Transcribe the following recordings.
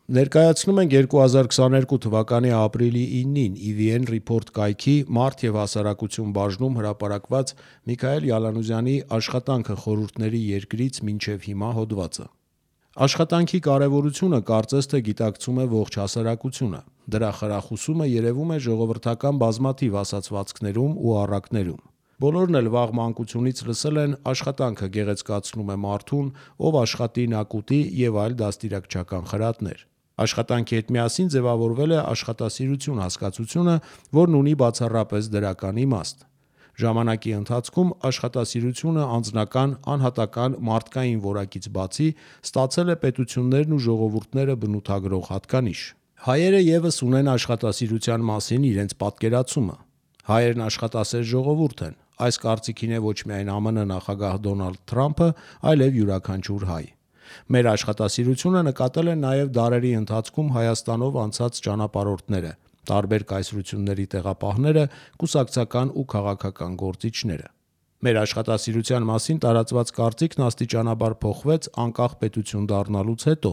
Ներկայացնում ենք 2022 թվականի ապրիլի 9-ին EVN Report կայքի մարդ և հասարակություն բաժնում հրապարակված Միքայել Յալանուզյանի «Աշխատանքը խորհուրդների երկրից մինչև հիմա» հոդվածը։ Աշխատանքի կարևորությունը կարծես թե գիտակցում է ողջ հասարակությունը։ Դրա խրախուսումը երևում է ժողովրդական բազմաթիվ ասացվածքներում ու առակներում։ Բոլորն էլ վաղ մանկությունից լսել են «աշխատանքը գեղեցկացնում է մարդուն, ով աշխատի նա կուտի» և այլ դաստիարակչական խրատներ։ Աշխատանքի հետ միասին ձևավորվել է աշխատասիրություն հասկացությունը, որն ունի բացառապես դրական իմաստ։ Ժամանակի ընթացքում աշխատասիրությունը անձնական, անհատական, մարդկային որակից բացի ստացել է պետություններն ու ժողովուրդները բնութագրող հատկանիշ։ Հայերը ևս ունեն աշխատասիրության մասին իրենց պատկերացումը։ Հայերն աշխատասեր ժողովուրդ են։ Այս կարծիքին է ոչ միայն ԱՄՆ նախագահ Դոնալդ Թրամփը, այլև յուրաքանչյուր հայ։ Մեր աշխատասիրությունը նկատել են նաև դարերի ընթացքում Հայաստանով անցած ճանապարհորդները, տարբեր կայսրությունների տեղապահները, կուսակցական ու քաղաքական գործիչները։ Մեր աշխատասիրության մասին տարածված կարծիքն աստիճանաբար փոխվեց անկախ պետություն դառնալուց հետո,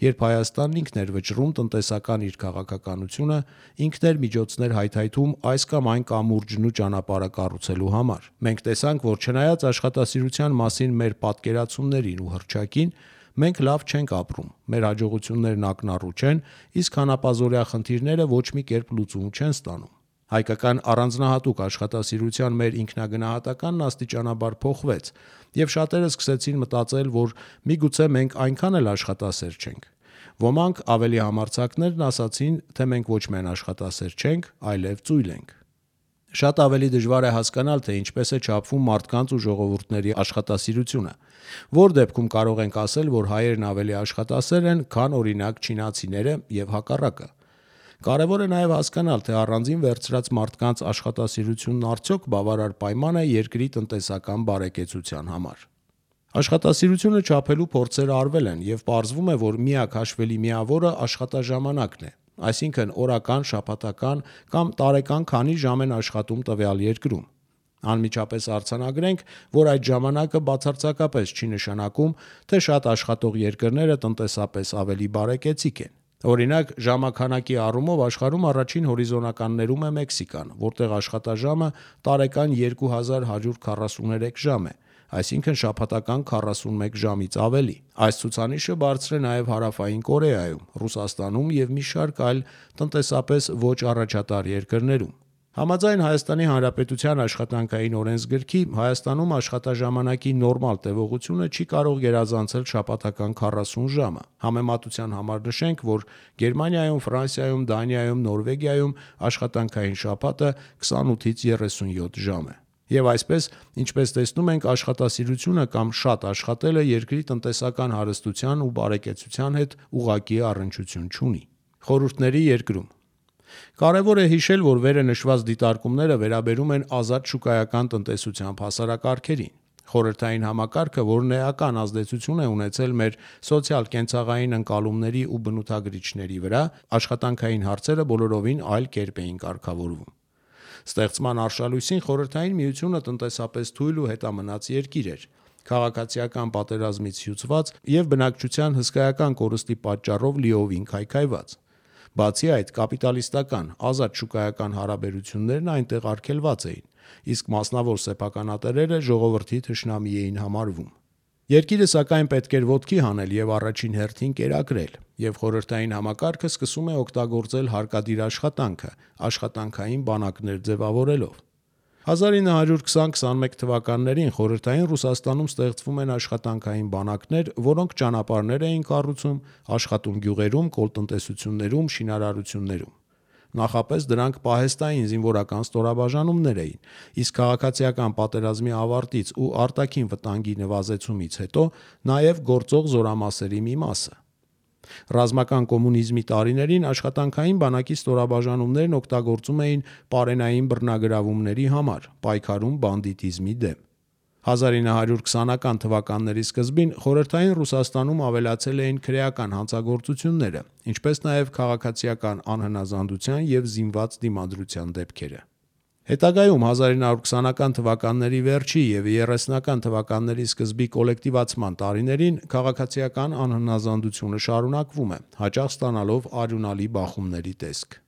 երբ Հայաստանն ինքն էր վճռում տնտեսական իր քաղաքականությունը, ինքն էր միջոցներ հայթայթում այս կամ այն կամուրջն ու ճանապարհը կառուցելու համար։ Մենք տեսանք, որ չնայած աշխատասիրության մասին մեր պատկերացումներին ու հռչակին, մենք լավ չենք ապրում, մեր հաջողություններն ակնառու չեն, իսկ հանապազօրյա խնդիրները ոչ մի կերպ լուծում չեն ստանում։ Հայկական առանձնահատուկ աշխատասիրության մեր ինքնագնահատականն աստիճանաբար փոխվեց, և շատերը սկսեցին մտածել, որ միգուցե մենք այնքան էլ աշխատասեր չենք։ Ոմանք ավելի համարձակներն ասացին, թե մենք ոչ միայն աշխատասեր չենք, այլև ծույլ ենք։ Շատ ավելի դժվար է հասկանալ, թե ինչպես է չափվում մարդկանց ու ժողովուրդների աշխատասիրությունը։ Որ դեպքում կարող ենք ասել, որ հայերն ավելի աշխատասեր են, քան օրինակ չինացիները և հակառակը։ Կարևոր է նաև հասկանալ, թե առանձին վերցրած մարդկանց աշխատասիրությունն արդյոք բավարար պայման է երկրի տնտեսական բարեկեցության համար։ Աշխատասիրությունը չափելու փորձեր արվել են, և պարզվում է, որ միակ հաշվելի միավորը աշխատաժամանակն է, այսինքն օրական, շաբաթական կամ տարեկան քանի ժամ են աշխատում տվյալ երկրում։ Անմիջապես արձանագրենք, որ այդ ժամանակը բացարձակապես չի նշանակում, թե շատ աշխատող երկրները տնտեսապես ավելի բարեկեցիկ են։ Օրինակ, ժամաքանակի առումով աշխարհում առաջին հորիզոնականներում է Մեքսիկան, որտեղ աշխատաժամը տարեկան 2143 ժամ է, այսինքն շաբաթական 41 ժամից ավելի։ Այս ցուցանիշը բարձր է նաև Հարավային Կորեայում, Ռուսաստանում և մի շարք այլ տնտեսապես ոչ առաջատար երկրներում։ Համաձայն Հայաստանի Հանրապետության աշխատանքային օրենսգրքի, Հայաստանում աշխատաժամանակի նորմալ տևողությունը չի կարող գերազանցել շաբաթական 40 ժամը։ Համեմատության համար նշենք, որ Գերմանիայում, Ֆրանսիայում, Դանիայում, Նորվեգիայում աշխատանքային շաբաթը 28-ից 37 ժամ է։ Եվ այսպես, ինչպես տեսնում ենք, աշխատասիրությունը կամ շատ աշխատելը երկրի տնտեսական հարստության ու բարեկեցության հետ ուղղակի առնչություն չունի։ Խորհուրդների երկրում կարևոր է հիշել, որ վերը նշված դիտարկումները վերաբերում են ազատ շուկայական տնտեսությամբ հասարակարգերին։ Խորհրդային համակարգը, որն էական ազդեցություն է ունեցել մեր սոցիալ-կենցաղային ընկալումների ու բնութագրիչների վրա, աշխատանքային հարցերը բոլորովին այլ կերպ էին կարգավորվում։ Ստեղծման արշալույսին Խորհրդային Միությունը տնտեսապես թույլ ու հետամնաց երկիր էր, քաղաքացիական պատերազմից հյուծված և բնակչության հսկայական կորստի պատճառով լիովին քայքայված։ Բացի այդ, կապիտալիստական, ազատ շուկայական հարաբերություններն այնտեղ արգելված էին, իսկ մասնավոր սեփականատերերը ժողովրդի թշնամի էին համարվում։ Երկիրը սակայն պետք էր ոտքի հանել և առաջին հերթին կերակրել, և խորհրդային համակարգը սկսում է օգտագործել հարկադիր աշխատանքը՝ աշխատանքային բանակներ ձևավորելով։ 1920-21 թվականներին Խորհրդային Ռուսաստանում ստեղծվում են աշխատանքային բանակներ, որոնք ճանապարհներ էին կառուցում, աշխատում գյուղերում, կոլտնտեսություններում, շինարարություններում։ Նախապես դրանք պահեստային զինվորական ստորաբաժանումներ էին, իսկ քաղաքացիական պատերազմի ավարտից ու արտաքին վտանգի նվազեցումից հետո նաև գործող զորամասերի մի մասը։ Ռազմական կոմունիզմի տարիներին աշխատանքային բանակի ստորաբաժանումներն օգտագործում էին պարենային բռնագրավումների համար, պայքարում բանդիտիզմի դեմ։ 1920-ական թվականների սկզբին Խորհրդային Ռուսաստանում ավելացել էին քրեական հանցագործությունները, ինչպես նաև քաղաքացիական անհնազանդության և զինված դիմադրության դեպքերը։ Հետագայում 1920-ական թվականների վերջի և 30-ական թվականների սկզբի կոլեկտիվացման տարիներին քաղաքացիական անհնազանդությունը շարունակվում է, հաճախ ստանալով արյունալի բախումների տեսք։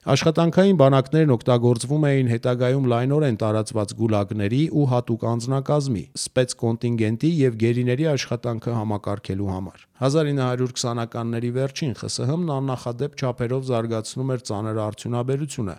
Աշխատանքային բանակներն օգտագործվում էին հետագայում լայնորեն տարածված գուլագների ու հատուկ անձնակազմի, սպեցկոնտինգենտի և գերիների աշխատանքը համակարգելու համար։ 1920-ականների վերջին ԽՍՀՄ-ն աննախադեպ չափերով զարգացնում էր ծանր արդյունաբերությունը,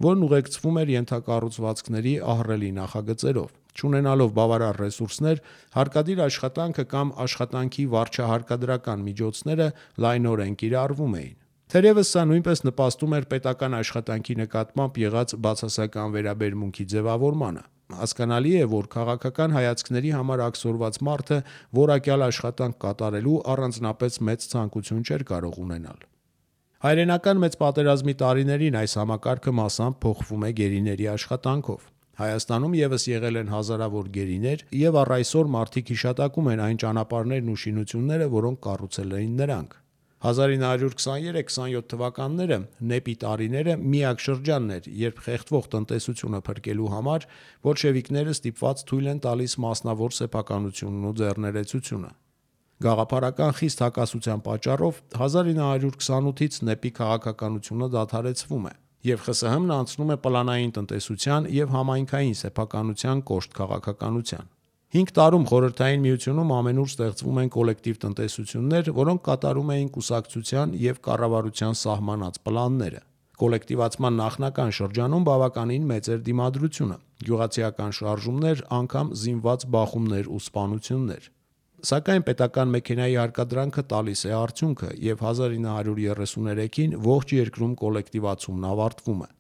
որն ուղեկցվում էր ենթակառուցվածքների ահռելի նախագծերով։ Չունենալով բավարար ռեսուրսներ, հարկադիր աշխատանքը կամ աշխատանքի վարչահարկադրական միջոցները լայնորեն կիրառվում էին։ Թերևս սա նույնպես նպաստում էր պետական աշխատանքի նկատմամբ եղած բացասական վերաբերմունքի ձևավորմանը։ Հասկանալի է, որ քաղաքական հայացքների համար աքսորված մարդը որակյալ աշխատանք կատարելու առանձնապես մեծ ցանկություն չէր կարող ունենալ։ Հայրենական մեծ պատերազմի տարիներին այս համակարգը մասամբ փոխվում է գերիների աշխատանքով։ Հայաստանում ևս եղել են հազարավոր գերիներ, և առ այսօր մարդիկ հիշատակում են այն ճանապարհներն ու շինությունները, որոնք կառուցել էին նրանք։ 1923-27 թվականները նեպի տարիները միակ շրջանն էր, երբ խեղդվող տնտեսությունը փրկելու համար բոլշևիկները ստիպված թույլ են տալիս մասնավոր սեփականությունն ու ձեռներեցությունը։ Գաղափարական խիստ հակասության պատճառով 1928-ից նեպի քաղաքականությունը դադարեցվում է, և ԽՍՀՄ-ն անցնում է պլանային տնտեսության և համայնքային սեփականության կոշտ քաղաքականության։ 5 տարում Խորհրդային Միությունում ամենուր ստեղծվում են կոլեկտիվ տնտեսություններ, որոնք կատարում էին կուսակցության և կառավարության սահմանած պլանները։ Կոլեկտիվացման նախնական շրջանում բավականին մեծ էր դիմադրությունը, գյուղացիական շարժումներ, անգամ զինված բախումներ ու սպանություններ։ Սակայն պետական մեքենայի հարկադրանքը տալիս է արդյունքը, և 1933-ին ողջ երկրում կոլեկտիվացումն ավարտվում է։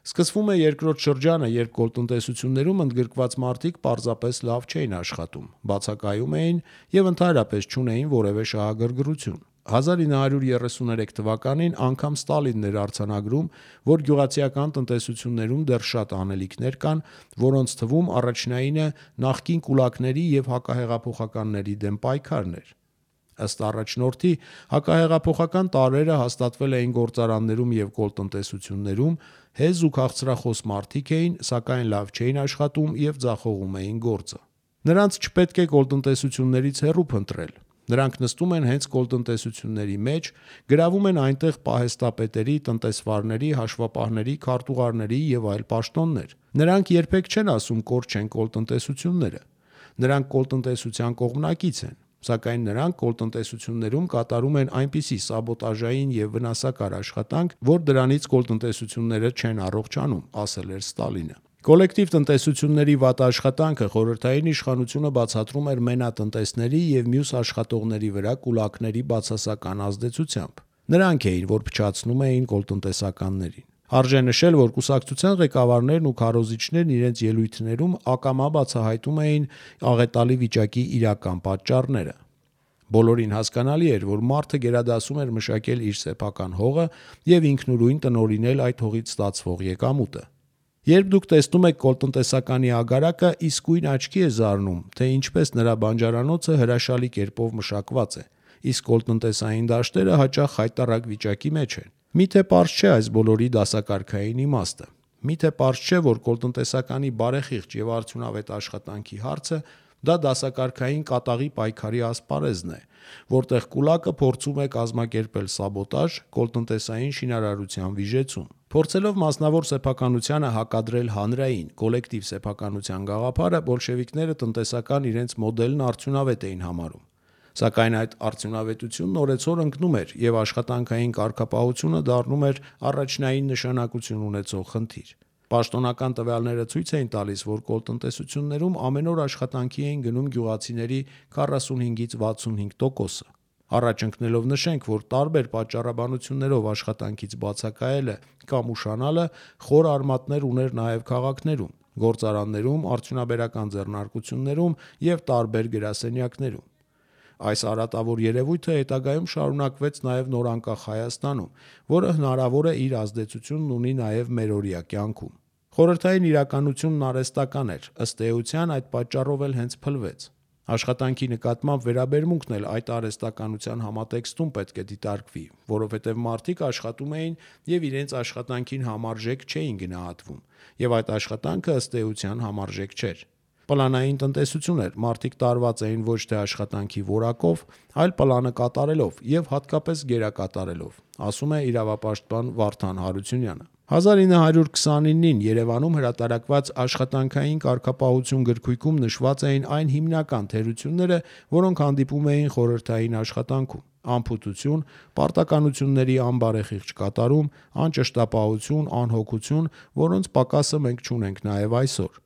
Սկսվում է երկրորդ շրջանը, երբ կոլտնտեսություններում ընդգրկված մարդիկ պարզապես լավ չէին աշխատում, բացակայում էին և ընդհանրապես չունեին որևէ շահագրգռություն։ 1933 թվականին անգամ Ստալինն էր արձանագրում, որ գյուղացիական տնտեսություններում դեռ շատ անելիքներ կան, որոնց թվում առաջնայինը նախկին կուլակների և հակահեղափոխականների դեմ պայքարն էր։ Ըստ առաջնորդի, հակահեղափոխական տարրերը հաստատվել էին գործարաններում և կոլտնտեսություններում, հեզ ու քաղցրախոս մարդիկ էին, սակայն լավ չէին աշխատում և ձախողում էին գործը։ Նրանց չպետք է կոլտնտեսություններից հեռու փնտրել։ Նրանք նստում են հենց կոլտնտեսությունների մեջ, գրավում են այնտեղ պահեստապետերի, տնտեսվարների, հաշվապահների, քարտուղարների և այլ պաշտոններ։ Նրանք երբեք չեն ասում կորչեն կոլտնտեսությունները։ Նրանք կոլտնտեսության կողմնակից են, սակայն նրանք կոլտնտեսություններում կատարում են այնպիսի սաբոտաժային և վնասակար աշխատանք, որ դրանից կոլտնտեսությունները չեն առողջանում, ասել էր Ստալինը։ Կոլեկտիվ տնտեսությունների վատ աշխատանքը խորհրդային իշխանությունը բացատրում էր մենատնտեսների և մյուս աշխատողների վրա կուլակների բացասական ազդեցությամբ։ Նրանք էին, որ փչացնում էին կոլտնտեսականներին։ Արժե նշել, որ կուսակցության ղեկավարներն ու քարոզիչներն իրենց ելույթներում ակամա բացահայտում էին աղետալի վիճակի իրական պատճառները։ Բոլորին հասկանալի էր, որ մարդը գերադասում էր մշակել իր սեփական հողը և ինքնուրույն տնօրինել այդ հողից ստացվող եկամուտը։ Երբ դուք տեսնում եք կոլտնտեսականի ագարակը, իսկույն աչքի է զարնում, թե ինչպես նրա բանջարանոցը հրաշալի կերպով մշակված է, իսկ կոլտնտեսային դաշտերը հաճախ խայտառակ վիճակի մեջ են։ Միթե պարզ չէ այս բոլորի դասակարգային իմաստը։ Միթե պարզ չէ, որ կոլտնտեսականի բարեխիղճ և արդյունավետ աշխատանքի հարցը դա դասակարգային կատաղի պայքարի ասպարեզն է, որտեղ կուլակը փորձում է կազմակերպել սաբոտաժ կոլտնտեսային շինարարության վիժեցում։ Փորձելով մասնավոր սեփականությանը հակադրել հանրային, կոլեկտիվ սեփականության գաղափարը, բոլշևիկները տնտեսական իրենց մոդելն արդյունավետ էին համարում։ Սակայն այդ արդյունավետությունն օրեցօր ընկնում էր, և աշխատանքային կարգապահությունը դառնում էր առաջնային նշանակություն ունեցող խնդիր։ Պաշտոնական տվյալները ցույց էին տալիս, որ կոլտնտեսություններում ամեն օր աշխատանքի էին գնում գյուղացիների 45-ից 65%-ը։ Առաջ ընկնելով նշենք, որ տարբեր պատճառաբանություններով աշխատանքից բացակայելը կամ ուշանալը խոր արմատներ ուներ նաև քաղաքներում, գործարաններում, արդյունաբերական ձեռնարկություններում և տարբեր գրասենյակներում։ Այս արատավոր երևույթը հետագայում շարունակվեց նաև նորանկախ Հայաստանում, որը հնարավոր է իր ազդեցությունն ունի նաև մերօրյա կյանքում։ Խորհրդային իրականությունն արհեստական էր, ըստ էության այդ պատճառով էլ հենց փլվեց։ Աշխատանքի նկատմամբ վերաբերմունքն էլ այդ արհեստականության համատեքստում պետք է դիտարկվի, որովհետև մարդիկ աշխատում էին և իրենց աշխատանքին համարժեք չէին գնահատվում, և այդ աշխատանքը ըստ էության համարժեք չէր։ Պլանային տնտեսություն էր, մարդիկ տարված էին ոչ թե աշխատանքի որակով, այլ պլանը կատարելով և հատկապես գերակատարելով, ասում է իրավապաշտպան Վարդան Հարությունյանը։ 1929-ին Երևանում հրատարակված «Աշխատանքային կարգապահություն» գրքույկում նշված էին այն հիմնական թերությունները, որոնք հանդիպում էին խորհրդային աշխատանքում՝ անփութություն, պարտականությունների անբարեխիղճ կատարում, անճշտապահություն, անհոգություն, որոնց պակասը մենք չունենք նաև այսօր։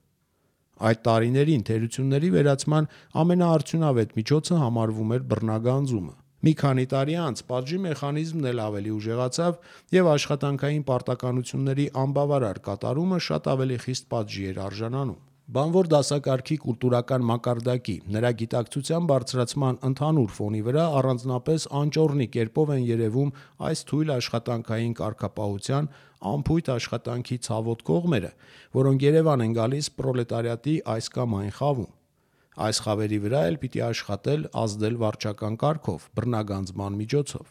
Այդ տարիներին թերությունների վերացման ամենաարդյունավետ միջոցը համարվում էր բռնագանձումը։ Մի քանի տարի անց պատժի մեխանիզմն էլ ավելի ուժեղացավ, և աշխատանքային պարտականությունների անբավարար կատարումը շատ ավելի խիստ պատժի էր արժանանում։ Բանվոր դասակարգի կուլտուրական մակարդակի, նրա գիտակցության բարձրացման ընդհանուր ֆոնի վրա առանձնապես անճոռնի կերպով են երևում այս թույլ աշխատանքային կարգապահության անփույթ աշխատանքի ցավոտ կողմերը, որոնք Երևան են գալիս պրոլետարիատի այս կամ այն խավում։ Այս խավերի վրա էլ պիտի աշխատել, ազդել վարչական կարգով, բռնագանձման միջոցով։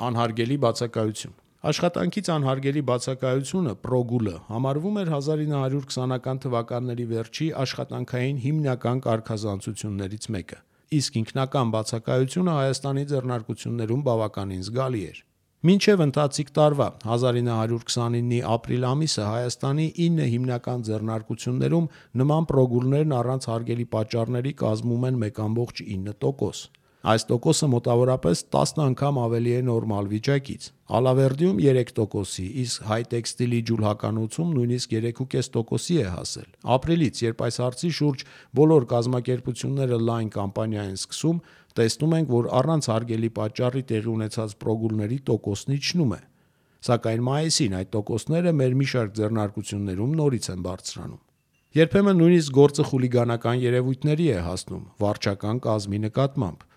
Անհարգելի բացակայություն։ Աշխատանքից անհարգելի բացակայությունը (պրոգուլը) համարվում էր 1920-ական թվականների վերջի աշխատանքային հիմնական կարգազանցություններից մեկը, իսկ ինքնական բացակայությունը Հայաստանի ձեռնարկություններում բավականին զգալի էր։ Մինչև ընթացիկ տարվա 1929-ի ապրիլ ամիսը Հայաստանի 9 հիմնական ձեռնարկություններում նման պրոգուլներն առանց հարգելի պատճառների կազմում են 1,9%։ Այս տոկոսը մոտավորապես 10 անգամ ավելի է նորմալ վիճակից։ Ալավերդիում 3%-ի, իսկ Հայտեքստիլի ջուլհականոցում նույնիսկ 3,5%-ի է հասել։ Ապրիլից, երբ այս հարցի շուրջ բոլոր կազմակերպությունները լայն կամպանիա են սկսում, տեսնում ենք, որ առանց հարգելի պատճառի տեղի ունեցած պրոգուլների տոկոսն իջնում է։ Սակայն մայիսին այդ տոկոսները մեր մի շարք ձեռնարկություններում նորից են բարձրանում։ Երբեմն նույնիսկ գործը խուլիգանական երևույթների է հասնում վարչական կազմի նկատմամբ։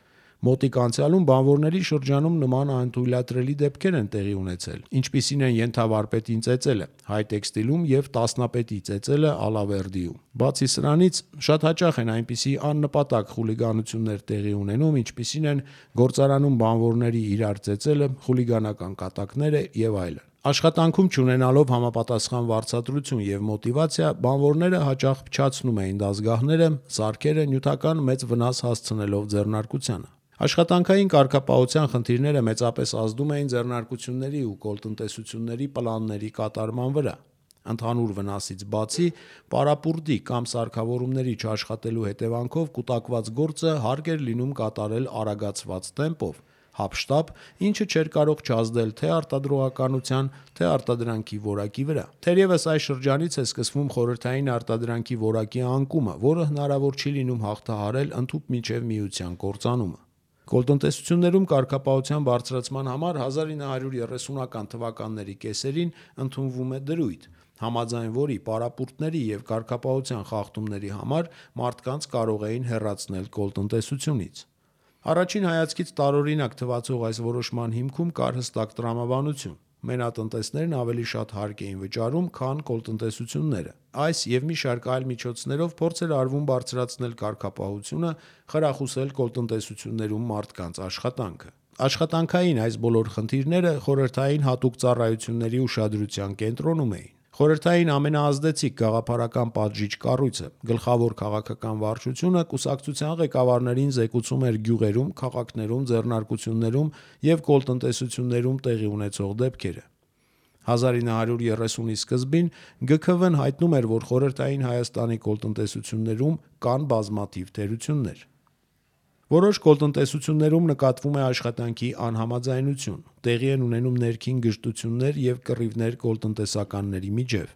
Մոտիկ անցյալում բանվորների շրջանում նման անթույլատրելի դեպքեր են տեղի ունեցել, ինչպիսին են ենթավարպետին ծեծելը Հայտեքստիլում և տասնապետի ծեծելը Ալավերդիում։ Բացի սրանից, շատ հաճախ են այնպիսի աննպատակ խուլիգանություններ տեղի ունենում, ինչպիսին են գործարանում բանվորների իրար ծեծելը, խուլիգանական կատակները և այլն։ Աշխատանքում չունենալով համապատասխան վարձատրություն և մոտիվացիա, բանվորները հաճախ փչացնում էին դասգահները, սարքերը, նյութական մեծ վնաս հասցնելով ձեռնարկությանը։ Աշխատանքային կարգապահության խնդիրները մեծապես ազդում էին ձեռնարկությունների ու կոլտնտեսությունների պլանների կատարման վրա։ Ընդհանուր վնասից բացի, պարապուրդի կամ սարքավորումների չաշխատելու հետևանքով կուտակված գործը հարկ էր լինում կատարել արագացված տեմպով, հափշտապ, ինչը չէր կարող չազդել թե արտադրողականության, թե արտադրանքի որակի վրա։ Թերևս այս շրջանից է սկսվում խորհրդային արտադրանքի որակի անկումը, որը հնարավոր չի լինում հաղթահարել ընդհուպ մինչև միության կործանումը։ Կոլտնտեսություններում կարգապահության բարձրացման համար 1930-ական թվականների կեսերին ընդունվում է դրույթ, համաձայն որի պարապուրդների և կարգապահության խախտումների համար մարդկանց կարող էին հեռացնել կոլտնտեսությունից։ Առաջին հայացքից տարօրինակ թվացող այս որոշման հիմքում կար հստակ տրամաբանություն։ Մենատնտեսներն ավելի շատ հարկ էին վճարում, քան կոլտնտեսությունները։ Այս և մի շարք այլ միջոցներով փորձ էր արվում բարձրացնել կարգապահությունը, խրախուսել կոլտնտեսություններում մարդկանց աշխատանքը։ Աշխատանքային այս բոլոր խնդիրները խորհրդային հատուկ ծառայությունների ուշադրության կենտրոնում էին։ Խորհրդային ամենաազդեցիկ գաղափարական պատժիչ կառույցը՝ գլխավոր քաղաքական վարչությունը, կուսակցության ղեկավարներին զեկուցում էր գյուղերում, քաղաքներում, ձեռնարկություններում և կոլտնտեսություններում տեղի ունեցող դեպքերը։ 1930-ի սկզբին ԳՔՎ-ն հայտնում էր, որ խորհրդային Հայաստանի կոլտնտեսություններում կան բազմաթիվ թերություններ։ Որոշ կոլտնտեսություններում նկատվում է աշխատանքի անհամաձայնություն, տեղի են ունենում ներքին գժտություններ և կռիվներ կոլտնտեսականների միջև։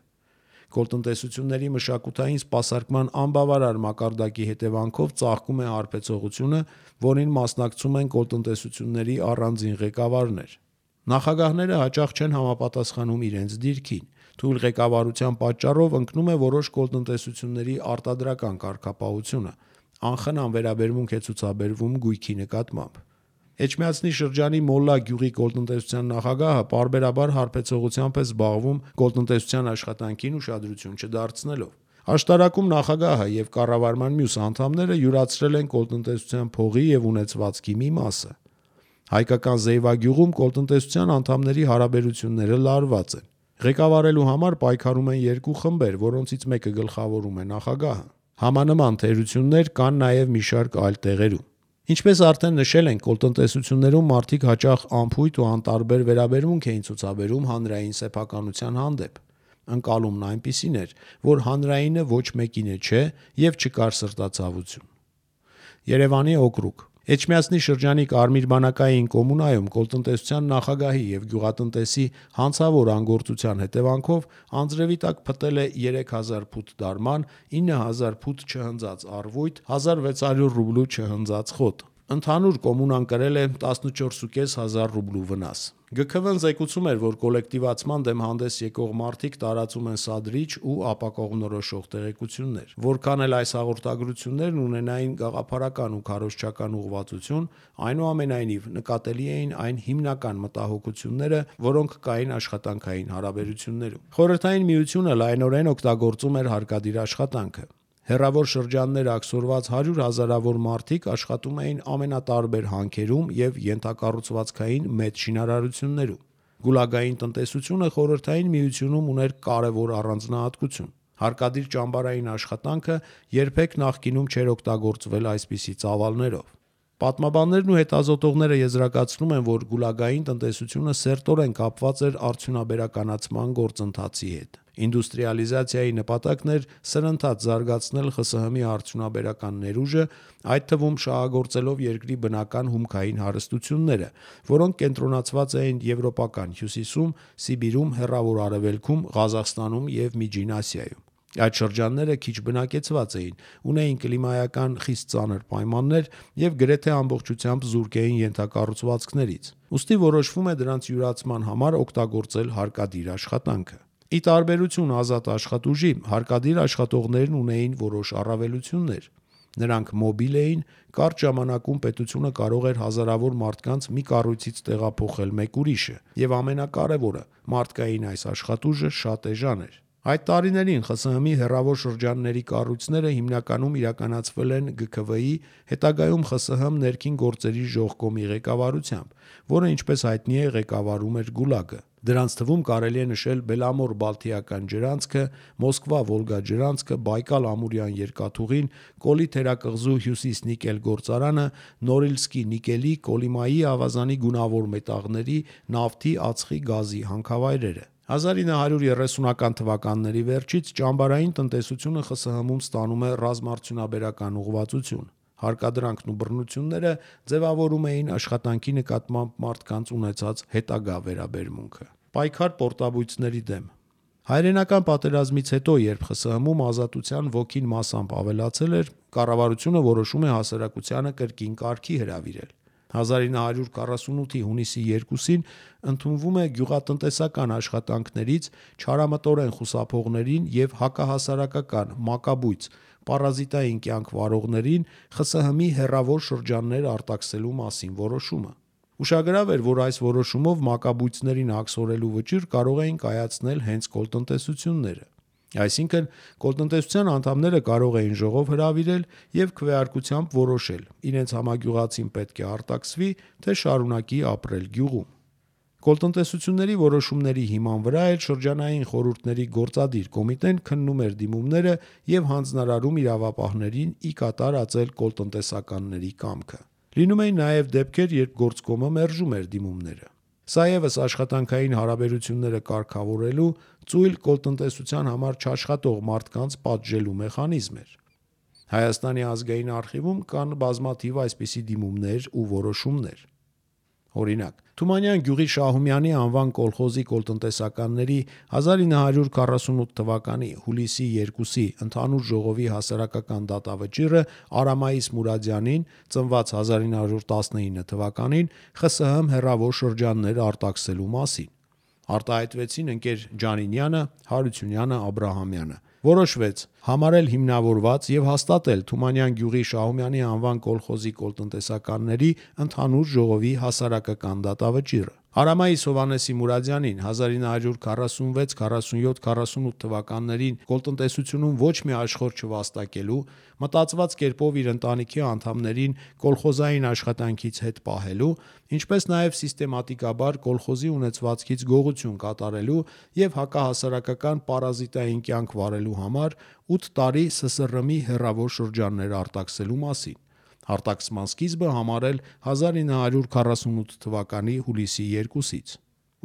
Կոլտնտեսությունների մշակութային սպասարկման անբավարար մակարդակի հետևանքով ծաղկում է հարբեցողությունը, որին մասնակցում են կոլտնտեսությունների առանձին ղեկավարներ։ Նախագահները հաճախ չեն համապատասխանում իրենց դիրքին։ Թույլ ղեկավարության պատճառով ընկնում է որոշ կոլտնտեսությունների արտադրական կարգապահությունը, անխնամ վերաբերմունք է ցուցաբերվում գույքի նկատմամբ։ Էջմիածնի շրջանի Մոլլա գյուղի կոլտնտեսության նախագահը պարբերաբար հարբեցողությամբ է զբաղվում կոլտնտեսության աշխատանքին ուշադրություն չդարձնելով։ Աշտարակում նախագահը եւ կառավարման մյուս անդամները յուրացրել են կոլտնտեսության փողի եւ ունեցվածքի մի մասը։ Հայկական Զեյվագյուղում կոլտնտեսության անդամների հարաբերությունները լարված են։ Ղեկավարելու համար պայքարում են երկու խմբեր, որոնցից մեկը գլխավորում է նախագահը։ Համանման թերություններ կան նաև մի շարք այլ տեղերում։ Ինչպես արդեն նշել ենք, կոլտնտեսություններում մարդիկ հաճախ անփույթ ու անտարբեր վերաբերմունք էին ցուցաբերում հանրային սեփականության հանդեպ։ Ընկալումն այնպիսին էր, որ հանրայինը ոչ մեկին չէ եւ չկար սրտացավություն։ Երևանի օկրուգ Էջմիածնի շրջանի Կարմիր բանակային կոմունայում կոլտնտեսության նախագահի եւ գյուղատնտեսի հանցավոր անգործության հետևանքով անձրևի տակ փտել է 3000 փութ դարման, 9000 փութ չհնձած առվույթ, 1600 ռուբլու չհնձած խոտ։ Ընդհանուր կոմունան կրել է 14.500 ռուբլու վնաս։ ԳՔՎ-ն զեկուցում էր, որ կոլեկտիվացման դեմ հանդես եկող մարդիկ տարածում են սադրիչ ու ապակողմնորոշող տեղեկություններ։ Որքան էլ այս հաղորդագրություններն ունենային գաղափարական ու քարոզչական ուղղվածություն, այնուամենայնիվ նկատելի էին այն հիմնական մտահոգությունները, որոնք կային աշխատանքային հարաբերություններում։ Խորհրդային Միությունը լայնորեն օգտագործում էր հարկադիր աշխատանքը։ Հեռավոր շրջաններ աքսորված 100 հազարավոր մարդիկ աշխատում էին ամենատարբեր հանքերում եւ ենթակառուցվածքային մեծ շինարարություններում։ Գուլագային տնտեսությունը Խորհրդային Միությունում ուներ կարևոր առանձնահատկություն։ Հարկադիր ճամբարային աշխատանքը երբեք նախկինում չէր օգտագործվել այսպիսի ծավալներով։ Պատմաբաններն ու հետազոտողները եզրակացնում են, որ գուլագային տնտեսությունը սերտորեն կապված էր արդյունաբերականացման գործընթացի հետ։ Ինդուստրիալիզացիայի նպատակն էր սրընթաց զարգացնել ԽՍՀՄ-ի արդյունաբերական ներուժը, այդ թվում շահագործելով երկրի բնական հումքային հարստությունները, որոնք կենտրոնացված էին Եվրոպական Հյուսիսում, Սիբիրում, Հեռավոր Արևելքում, Ղազախստանում եւ Միջին Ասիայում։ Այդ շրջանները քիչ բնակեցված էին, ունեին կլիմայական խիստ ծանր պայմաններ եւ գրեթե ամբողջությամբ զուրկ էին ենթակառուցվածքներից։ Ուստի որոշվում է դրանց յուրացման համար օգտագործել հարկադիր աշխատանքը։ Ի տարբերություն ազատ աշխատուժի, հարկադիր աշխատողներն ունեին որոշ առավելություններ։ Նրանք մոբիլ էին, կարճ ժամանակում պետությունը կարող էր հազարավոր մարդկանց մի կառույցից տեղափոխել մեկ ուրիշը, եւ ամենակարևորը, մարդկային այս աշխատուժը շատ էժան էր։ Այդ տարիներին ԽՍՀՄ-ի հեռավոր շրջանների կառույցները հիմնականում իրականացվել են ԳՔՎ-ի, հետագայում ԽՍՀՄ ներքին գործերի ժողկոմի ղեկավարությամբ, որը ինչպես հայտնի է ղեկավարում էր Գուլագը։ Դրանց թվում կարելի է նշել Բելամոր-Բալթիական ջրանցքը, Մոսկվա-Վոլգա ջրանցքը, Բայկալ-Ամուրյան երկաթուղին, Կոլի թերակղզու Հյուսիս-նիկել գործարանը, Նորիլսկի նիկելի, Կոլիմայի ավազանի գունավոր մետաղների, նավթի, ածխի, գազի հանքավայրերը։ 1930-ական թվականների վերջից ճամբարային տնտեսությունը ԽՍՀՄ-ում ստանում է ռազմարդյունաբերական ուղղվածություն։ Հարկադրանքն ու բռնությունները ձևավորում էին աշխատանքի նկատմամբ մարդկանց ունեցած հետագա վերաբերմունքը։ Պայքար պորտաբույծների դեմ։ Հայրենական պատերազմից հետո, երբ ԽՍՀՄ-ում ազատության ոգին մասամբ ավելացել էր, կառավարությունը որոշում է հասարակությանը կրկին կարգի հրավիրել։ 1948-ի հունիսի 2-ին ընդունվում է գյուղատնտեսական աշխատանքներից չարամտորեն խուսափողներին եւ հակահասարակական մակաբույծ պարազիտային կյանք վարողներին ԽՍՀՄ-ի հեռավոր շրջաններ արտաքսելու մասին որոշումը։ Ուշագրավ էր, որ այս որոշումով մակաբույծներին աքսորելու վճիռ կարող էին կայացնել հենց կոլտնտեսությունները։ Այսինքն, կոլտնտեսության անդամները կարող էին ժողով հրավիրել եւ քվեարկությամբ որոշել՝ իրենց համագյուղացին պետք է արտաքսվի, թե շարունակի ապրել գյուղում։ Կոլտնտեսությունների որոշումների հիման վրա էլ շրջանային խորհուրդների գործադիր կոմիտեն քննում էր դիմումները եւ հանձնարարում իրավապահներին ի կատար ածել կոլտնտեսականների կամքը։ Լինում էին նաեւ դեպքեր, երբ գործկոմը մերժում էր դիմումները։ Սա եւս աշխատանքային հարաբերությունները կարգավորելու, ծույլ կոլտնտեսության համար չաշխատող մարդկանց պատժելու մեխանիզմ էր։ Հայաստանի ազգային արխիվում կան բազմաթիվ այսպիսի դիմումներ ու որոշումներ։ Օրինակ, Թումանյան գյուղի Շահումյանի անվան կոլխոզի կոլտնտեսականների 1948 թվականի հուլիսի 2-ի ընդհանուր ժողովի հասարակական դատավճիռը Արամայիս Մուրադյանին, ծնված 1919 թվականին, ԽՍՀՄ հեռավոր շրջաններ արտաքսելու մասին։ Արտահայտվեցին ընկեր Ջանինյանը, Հարությունյանը, Աբրահամյանը։ Որոշվեց համարել հիմնավորված եւ հաստատել Թումանյան գյուղի Շահումյանի անվան կոլխոզի կոլտնտեսականների ընդհանուր ժողովի հասարակական դատավճիռը։ Արամայիս Հովհաննեսի Մուրադյանին 1946, 47, 48 թվականներին կոլտնտեսությունում ոչ մի աշխորհ չվաստակելու, մտածված կերպով իր ընտանիքի անդամներին կոլխոզային աշխատանքից հետ պահելու, ինչպես նաև սիստեմատիկաբար կոլխոզի ունեցվածքից գողություն կատարելու և հակահասարակական պարազիտային կյանք վարելու համար 8 տարի ՍՍՌՄ-ի հեռավոր շրջաններ արտաքսելու մասին։ Արտաքսման սկիզբը համարել 1948 թվականի հուլիսի 2-ից։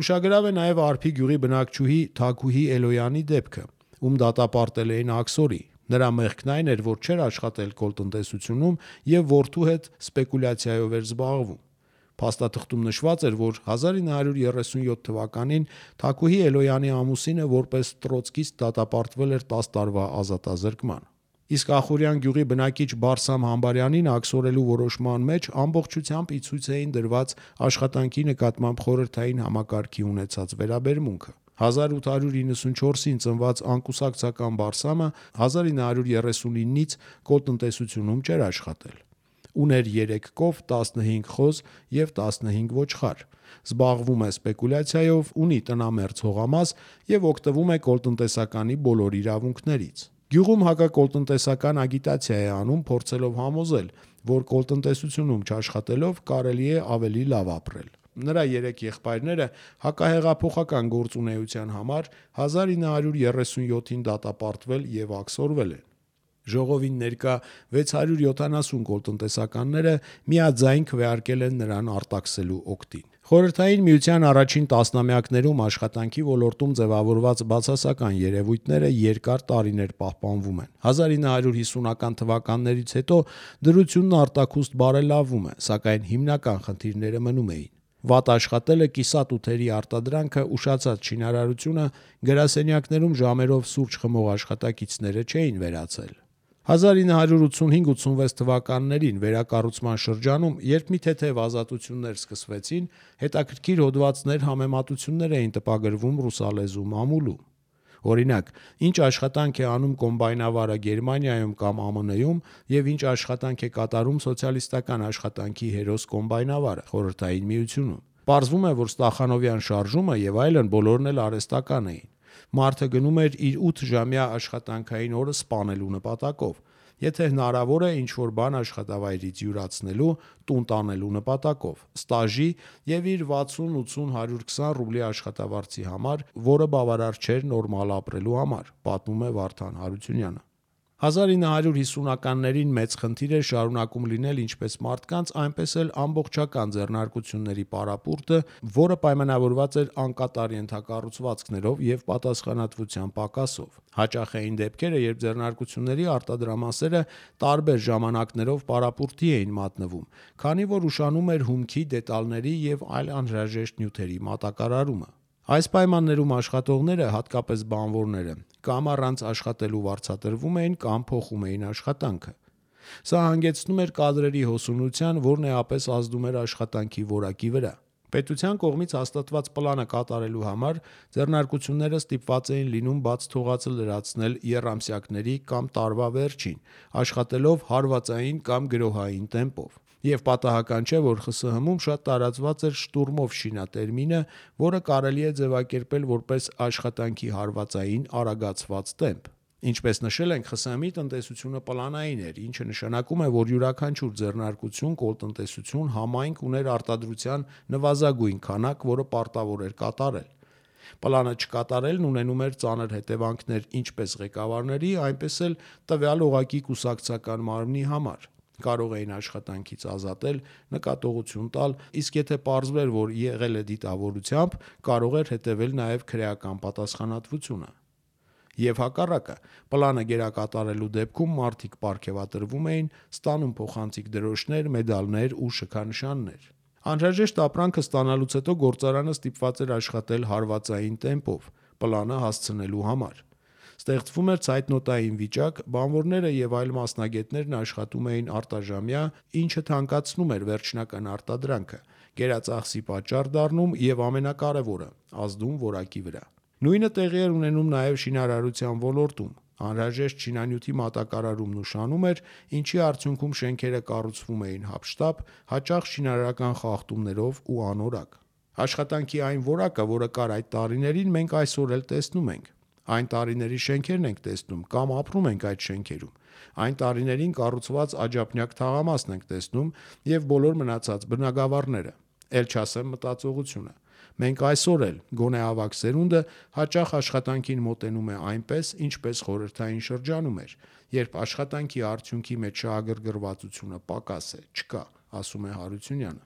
Ուշագրավ է նաև Արփի գյուղի բնակչուհի Թաքուհի Էլոյանի դեպքը, ում դատապարտել էին աքսորի։ Նրա մեղքն այն էր, որ չէր աշխատել կոլտնտեսությունում և որդու հետ սպեկուլյացիայով էր զբաղվում։ Փաստաթղթում նշված էր, որ 1937 թվականին Թաքուհի Էլոյանի ամուսինը որպես տրոցկիստ դատապարտվել էր 10 տարվա ազատազրկման։ Իսկ Ախուրյան գյուղի բնակիչ Բարսամ Համբարյանին աքսորելու որոշման մեջ ամբողջությամբ ի ցույց էին դրված աշխատանքի նկատմամբ խորհրդային համակարգի ունեցած վերաբերմունքը։ 1894-ին ծնված անկուսակցական Բարսամը 1939-ից կոլտնտեսությունում չէր աշխատել։ Ուներ 3 կով, 15 խոզ և 15 ոչխար։ Զբաղվում է սպեկուլյացիայով, ունի տնամերձ հողամաս և օգտվում է կոլտնտեսականի բոլոր իրավունքներից։ Գյուղում հակակոլտնտեսական ագիտացիա է անում, փորձելով համոզել, որ կոլտնտեսությունում չաշխատելով կարելի է ավելի լավ ապրել։ Նրա 3 եղբայրները հակահեղափոխական գործունեության համար 1937-ին դատապարտվել և աքսորվել են։ Ժողովին ներկա 670 կոլտնտեսականները միաձայն քվեարկել են նրան արտաքսելու օգտին։ Խորհրդային Միության առաջին տասնամյակներում աշխատանքի ոլորտում ձևավորված բացասական երևույթները երկար տարիներ պահպանվում են։ 1950-ական թվականներից հետո դրությունն արտաքուստ բարելավվում է, սակայն հիմնական խնդիրները մնում էին։ Վատ աշխատելը, կիսատութերի արտադրանքը, ուշացած շինարարությունը, գրասենյակներում ժամերով սուրճ խմող աշխատակիցները չէին վերացել։ 1985-86 թվականներին վերակառուցման շրջանում, երբ մի թեթև ազատություններ սկսվեցին, հետաքրքիր հոդվածներ, համեմատություններ էին տպագրվում ռուսալեզու մամուլում։ Օրինակ, ինչ աշխատանք է անում կոմբայնավարը Գերմանիայում կամ ԱՄՆ-ում և ինչ աշխատանք է կատարում սոցիալիստական աշխատանքի հերոս կոմբայնավարը Խորհրդային Միությունում։ Պարզվում է, որ Ստախանովյան շարժումը և այլն բոլորն էլ արհեստական էին։ Մարդը գնում էր իր 8-ժամյա աշխատանքային օրը սպանելու նպատակով, եթե հնարավոր է ինչ-որ բան աշխատավայրից յուրացնելու, տուն տանելու նպատակով, ստաժի և իր 60-80-120 ռուբլի աշխատավարձի համար, որը բավարար չէր նորմալ ապրելու համար, պատմում է Վարդան Հարությունյանը։ 1950-ականներին մեծ խնդիր էր շարունակում լինել ինչպես մարդկանց, այնպես էլ ամբողջական ձեռնարկությունների պարապուրտը, որը պայմանավորված էր անկատար ենթակառուցվածքներով և պատասխանատվության պակասով։ Հաճախ էին դեպքերը, երբ ձեռնարկությունների արտադրամասերը տարբեր ժամանակներով պարապուրտի էին մատնվում, քանի որ ուշանում էր հումքի, դետալների և այլ անհրաժեշտ նյութերի մատակարարումը։ Այս պայմաններում աշխատողները, հատկապես բանվորները, կամ առանց աշխատելու վարձատրվում էին, կամ փոխում էին աշխատանքը։ Սա հանգեցնում էր կադրերի հոսունության, որն էապես ազդում էր աշխատանքի որակի վրա։ Պետության կողմից հաստատված պլանը կատարելու համար ձեռնարկությունները ստիպված էին լինում բաց թողածը լրացնել եռամսյակների կամ տարվա վերջին, աշխատելով հարվածային կամ գրոհային տեմպով։ Եվ պատահական չէ, որ ԽՍՀՄ-ում շատ տարածված էր շտուրմով շինա տերմինը, որը կարելի է ձևակերպել որպես աշխատանքի հարվածային արագացված տեմպ։ Ինչպես նշել ենք, ԽՍՀՄ-ի տնտեսությունը պլանային էր, ինչը նշանակում է, որ յուրաքանչյուր ձեռնարկություն, կոլտնտեսություն, համայնք ուներ արտադրության նվազագույն քանակ, որը պարտավոր էր կատարել։ Պլանը չկատարելն ունենում էր ծանր հետևանքներ ինչպես ղեկավարների, այնպես էլ տվյալ օղակի կուսակցական մարմնի համար։ Կարող էին աշխատանքից ազատել, նկատողություն տալ, իսկ եթե պարզվեր, որ եղել է դիտավորությամբ, կարող էր հետևել նաև քրեական պատասխանատվությունը։ Եվ հակառակը, պլանը գերակատարելու դեպքում մարդիկ պարգևատրվում էին, ստանում փոխանցիկ դրոշներ, մեդալներ ու շքանշաններ։ Անհրաժեշտ ապրանքը ստանալուց հետո գործարանը ստիպված էր աշխատել հարվածային տեմպով, պլանը հասցնելու համար։ Ստեղծվում էր ցայտնոտային վիճակ, բանվորները և այլ մասնագետներն աշխատում էին արտաժամյա, ինչը թանկացնում էր վերջնական արտադրանքը, գերածախսի պատճառ դառնում և ամենակարևորը՝ ազդում որակի վրա։ Նույնը տեղի էր ունենում նաև շինարարության ոլորտում։ Անհրաժեշտ շինանյութի մատակարարումն ուշանում էր, ինչի արդյունքում շենքերը կառուցվում էին հափշտապ, հաճախ շինարարական խախտումներով ու անորակ։ Աշխատանքի այն որակը, որը կար այդ տարիներին, մենք այսօր էլ տեսնում ենք։ Այն տարիների շենքերն ենք տեսնում կամ ապրում ենք այդ շենքերում։ Այն տարիներին կառուցված աջափնյակ թաղամասն ենք տեսնում եւ բոլոր մնացած բնակավարները։ Էլ չասեմ մտածողությունը։ Մենք այսօր էլ, գոնե ավագ սերունդը, հաճախ աշխատանքին մոտենում է այնպես, ինչպես խորհրդային շրջանում էր, երբ աշխատանքի արդյունքի մեջ շահագրգռվածությունը պակաս է, չկա, ասում է Հարությունյանը։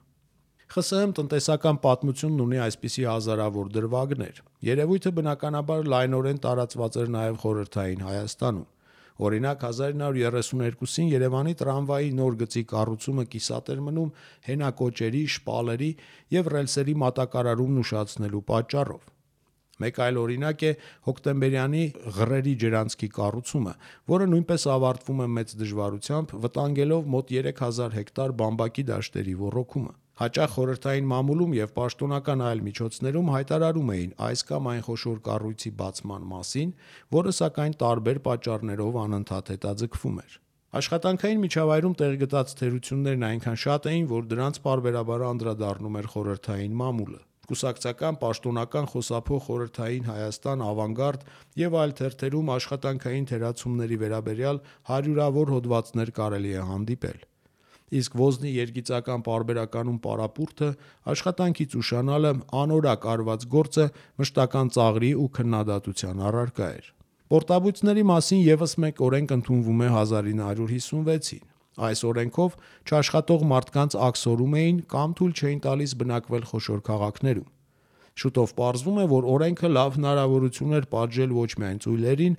ԽՍՀՄ տնտեսական պատմությունն ունի այսպիսի հազարավոր դրվագներ։ Երևույթը բնականաբար լայնորեն տարածված էր նաև խորհրդային Հայաստանում։ Օրինակ 1932-ին Երևանի տրամվայի նոր գծի կառուցումը կիսատ էր մնում հենակոճերի, շպալերի եւ ռելսերի մատակարարումն ուշացնելու պատճառով։ Մեկ այլ օրինակ է հոկտեմբերյանի Ղրերի ջրանցքի կառուցումը, որը նույնպես ավարտվում է մեծ դժվարությամբ, վտանգելով մոտ 3000 հեկտար բամբակի դաշտերի ոռոգումը։ Հաճախ խորհրդային մամուլում եւ պաշտոնական այլ միջոցներում հայտարարում էին այս կամ այն խոշոր կառույցի բացման մասին, որը սակայն տարբեր պատճառներով անընդհատ հետաձգվում էր։ Աշխատանքային միջավայրում տեղ գտած թերություններն այնքան շատ էին, որ դրանց պարբերաբար անդրադառնում էր խորհրդային մամուլը։ Կուսակցական, պաշտոնական խոսափող խորհրդային Հայաստան, Ավանգարդ եւ այլ թերթերում աշխատանքային թերացումների վերաբերյալ հարյուրավոր հոդվածներ կարելի է հանդիպել։ Իսկ ոզնի երգիծական պարբերականում պարապուրդը, աշխատանքից ուշանալը, անորակ արված գործը մշտական ծաղրի ու քննադատության առարկա էր։ Պորտաբույծների մասին եւս մեկ օրենք ընդունվում է 1956-ին։ Այս օրենքով չաշխատող մարդկանց աքսորում էին կամ թույլ չէին տալիս բնակվել խոշոր քաղաքներում։ Շուտով պարզվում է, որ օրենքը լավ հնարավորություն էր պատժել ոչ միայն ծույլերին,